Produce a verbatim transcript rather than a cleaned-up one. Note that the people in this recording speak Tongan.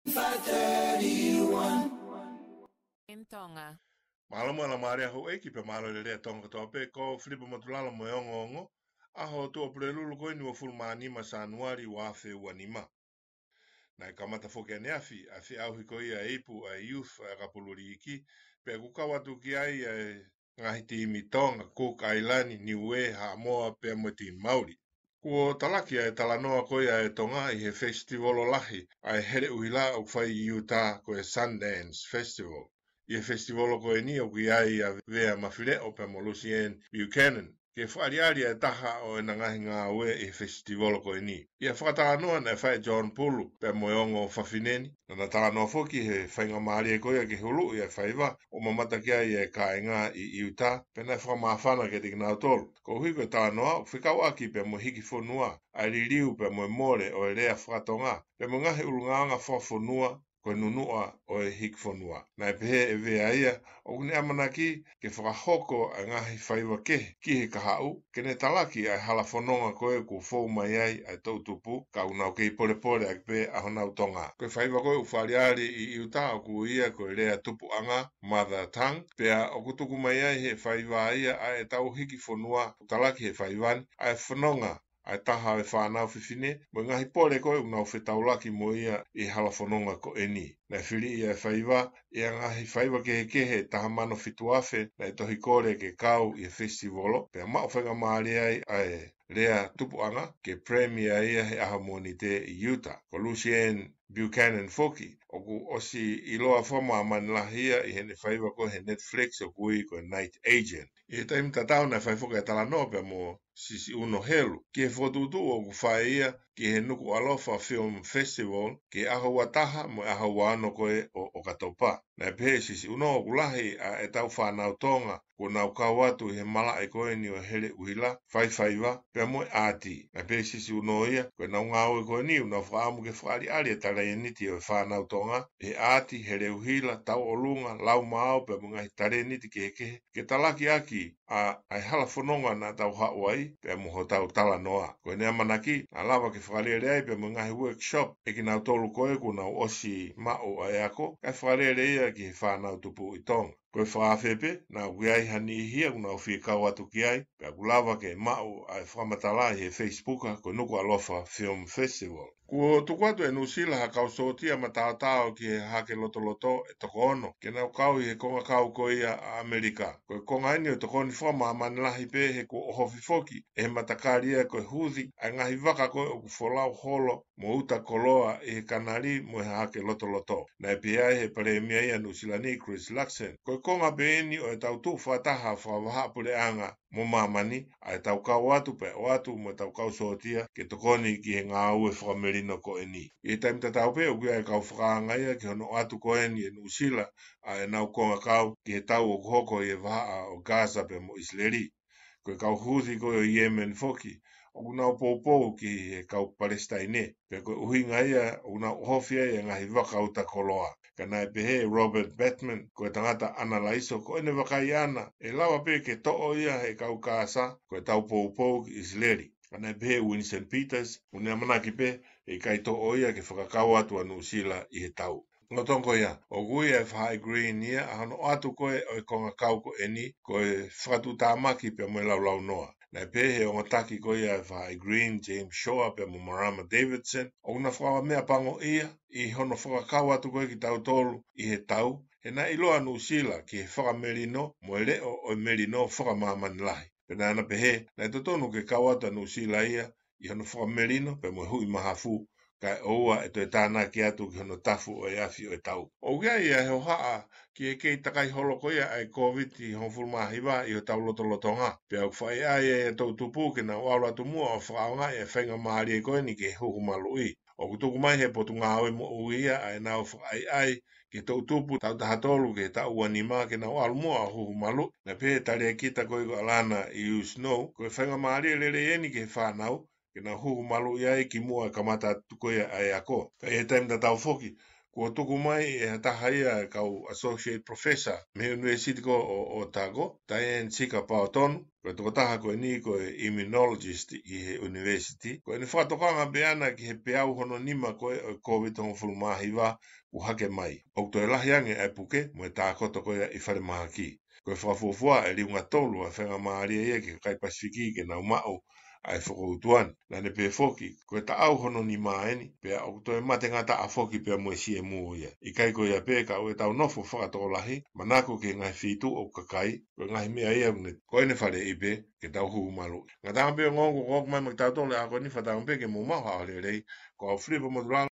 five thirty-one. In Tonga. Mālō mo e laumālie ʻa houʻeiki pea mālō e lelei ʻa Tonga kotoa pē, ko Filipa Motulala mo e ongoongo, ʻaho Tuʻapulelulu ko eni uofulu mā nima Sānuali ua afe ua nima. Naʻe kamata foki ʻaneafi ʻa e feʻauhi ko ia e ipu ʻa e Youth ʻa e ʻakapulu liiki, pea ʻoku kau atu ki ai ʻa e ngaahi timi Tonga, Cook Island, Niue, Haʻamoa, pea mo e timi Mauli. Kuo talaki ʻa e talanoa ko ia ʻa e Tonga ʻi he festival lahi ʻa e heleʻuhila ʻoku fai ʻi Utah ko e Sundance Festival. ʻI he festival ko eni ʻoku ʻi ai ʻa Vea Mafileʻo pea mo Lucienne Buchanan, ke fakaʻaliʻali ʻa e taha ʻo ʻena ngaahi ngāue ʻi he festival ko eni. ʻI he fakatalanoa naʻe fai ʻe John Pulu pea mo e ongo fafine ni, naʻá na talanoa foki he faingamālie ko ia ke huluʻi ʻa e faiva ʻo mamata ki ai ʻa e kāinga ʻi Utah, pea naʻe fakamāfana kiate kinautolu. Koeʻuhi ko e talanoa ʻoku fekauʻaki pea mo e hiki fonua, ʻa e liliu pea mo e mole ʻo e lea fakatonga, pea mo e ngaahi ʻulungaanga fakafonua, ko e nunuʻa ʻo e hiki fonua. Naʻe pehē ʻe Vea ia, ʻoku ne ʻamanaki ke fakahoko ʻa e ngaahi faiva kehe ki he kahaʻu, ke ne talaki ʻa e hala fononga ko ē kuo fou mai ai ʻa e toʻutupu, ka ʻoku nau kei polepole ʻaki pē ʻa honau Tonga. Ko e faiva ko ē ʻoku fakaʻaliʻali ʻi Utah ʻoku ui ia ko e lea tupuʻanga, mother tongue, pea ʻoku tuku mai ai he faiva ia ʻa ʻetau hiki fonua, ʻoku talaki he faiva ni, ʻa e fononga ʻa e taha ʻo e fānau fefine, mo e ngaahi pole ko ē ʻoku nau fetaulaki mo ia ʻi he hala fononga ko eni. Naʻe fili ʻa e faiva ʻi he ngaahi faiva kehekehe ʻe taha mano fitu afe naʻe tohi kole ke kau ʻi he festivolo, pea maʻu faingamālie ai ʻa e lea tupuʻanga ke premiere ia he ʻaho Mōnite ʻi Utah. Ko Lucienne Buchanan foki, ʻoku ʻosi ʻiloa fakamāmani lahi ia ʻi heʻene faiva ko ē he Netflix ʻoku ui ko e Night Agent. ʻI he taimi tatau naʻe fai foki ʻa e talanoa pea mo Sisi ʻUno Helu ki he fokotuʻutuʻu ʻoku fai ia ki he Nukuʻalofa Film Festival ki he ʻaho ua taha mo e ʻaho ua ono ko ē ʻo ʻOkatopa. Naʻe pehē ʻe Sisi ʻUno ʻoku lahi ʻa ʻetau fānau Tonga kuo nau kau atu ʻi he malaʻe ko eni ʻo e heleʻuhila, fai faiva, pea mo e ʻaati. Naʻe pehē ʻe Sisi ʻUno ia, ko ʻenau ngāue ko eni ʻoku nau fakaʻamu ke fakaʻaliʻali e talēniti ʻo e fānau Tonga ʻi he ʻaati, heleʻuhila, tauʻolunga, laumāo, pea mo e ngaahi talēniti kehekehe, ke talaki ʻaki ʻa, ʻa e hala fononga naʻa tau haʻu ai, pea mo hotau talanoa. Ko ʻene ʻamanaki, naʻa lava ke fakalele ai pea mo e ngaahi workshop ʻe kinautolu ko ē kuo nau ʻosi maʻu ʻa e ako, kae fakalele ia ki he fānau tupu ʻi Tonga. Ko e fakaafe pē, naʻa ʻoku ʻi ai ha niʻihi ia ʻoku nau fie kau atu ki ai, pea ʻoku lava ke maʻu ʻa e fakamatala ʻi he Facebook ko e Nukuʻalofa Film Festival. Kuo tuku atu ʻe Nuʻusila ha kau sōtia mataotao ki he Hahake Lotoloto ʻe toko ono, ke nau kau ʻi he kongakau ko ia ʻa ʻAmelika. Ko e konga eni ʻo e tokoni fakamāmani lahi pē he kuo ʻohofi foki ʻe he matakali ia ko e huthi ʻa e ngaahi vaka ko ē ʻoku folau holo mo uta koloa ʻi he kanali mo e Hahake Lotoloto. Naʻe pehē ai ʻe he Palēmia ia ʻa Nuʻusila ni, Chris Luxon, ko e konga pē eni ʻo ʻetau tuʻu fakataha fakavahaʻapuleʻanga mo māmani, ʻa ʻetau kau atu pea ʻoatu mo ʻetau kau sōtia ke tokoni ki he ngāue fakamelino ko eni. ʻI he taimi tatau pē ʻoku ʻi ai e kau fakaanga ia ki hono ʻoatu ko eni ʻe Nuʻusila ʻa ʻenau kongakau ki he tau ʻoku hoko ʻi he vahaʻa ʻo Gaza pea mo ʻIsileli. Ko e kau huthi ko ē ʻo Yemen foki, ʻoku nau poupou ki he kau Palesitaine, pea ko e ʻuhinga ia ʻoku nau ʻohofi ai e ngaahi vaka uta koloa. Ka naʻe pehē ʻe Robert Batman, ko e tangata ʻanalaiso, ko ʻene vakai ʻana, ʻe lava pē ke toʻo ia ʻe he kau Gaza, ko ʻetau poupou ki ʻIsileli. Ka naʻe pehē ʻe Winston Peters, ʻoku ne ʻamanaki pē ʻe ʻikai toʻo ia ke fakakau atu ʻa Nuʻusila ʻi he tau. Lolotonga ia, ʻoku ui ʻe he Faʻahi Green ia ʻa hono ʻoatu ko ē ʻo e kongakau ko eni, ko e fakatuʻutāmaki pea mo e laulaunoa. Naʻe pehē ʻe he ongo taki ko ia ʻa e Faʻahi Green, James Shore pea mo Marama Davidson, ʻoku na fakameʻapangoʻia ʻi hono fakakau atu ko ē kitautolu ʻi he tau, he naʻe ʻiloa ʻa Nuʻusila ki he fakamelino mo e leʻo ʻo e melino fakamāmani lahi. Pea naʻá na pehē, naʻe totonu ke kau atu ʻa Nuʻusila ia ʻi hono fakamelino pea mo e huʻi mahafu, kae ʻoua ʻe toe tānaki atu ki hono tafu ʻo e afi ʻo e tau. ʻOku ʻi ai ʻa e hohaʻa ki he kei takai holo ko ia ʻa e Kōviti hongofulu mā hiva ʻi hotau lotolotonga, pea ʻoku fakaʻaiʻai ʻa e toʻutupu ke nau ʻalu atu muʻa ʻo fakaʻaongaʻi ʻa e faingamālie ko eni ke huhu maluʻi. ʻOku tuku mai ʻe he Potungāue Moʻui ia ʻa ʻenau fakaʻaiʻai ki he toʻutupu taʻu taha tolu ki he taʻu ua nima ke nau ʻalu muʻa ʻo huhu maluʻi. Naʻe pehē ʻe he talēkita ko ē ko ʻAlana ʻIu Snow, ko e faingamālie lelei eni ki he fānau ke nau huhu maluʻi ai kimuʻa e kamata atu ko ia ʻa e ako. Ka ʻi he taimi tatau foki, kuo tuku mai ʻe ha taha ia ʻa e kau Associate Professor mei he University ko ʻo Otago, Diane Sika Paotonu, ko e tokotaha ko eni ko e immunologist ʻi he university. Ko ʻene fakatokanga pē ʻana ki he peau hono nima ko ē ʻo e Covid hongofulu mā hiva ʻoku hake mai. ʻOku toe lahi ange ʻa e puke mo e tākoto ko ia ʻi falemahaki. Ko e fakafuofua ʻe liunga tolu ʻa e faingamālie ia ki he kakai Pasifiki ke nau maʻu ʻa e fokoutua ni. Naʻa ne pehē foki, ko e taʻau hono nima eni, pea ʻoku toe mate ngataʻa foki pea mo e C M ia. ʻIkai ko ia pē, ka ʻoku tau nofo fakatokolahi, manako ki he ngaahi feituʻu ʻo e kakai, ko e ngaahi meʻa ia ʻoku ne, ko ʻene faleʻi pē ke tau hū malu. Ngataʻanga pē ʻo ngō ko ʻoku mai mo kitautolu he ʻaho ko eni, fakatauange pē ke mou maʻu ha ʻaho lelei, ko au Filipa Motulanga.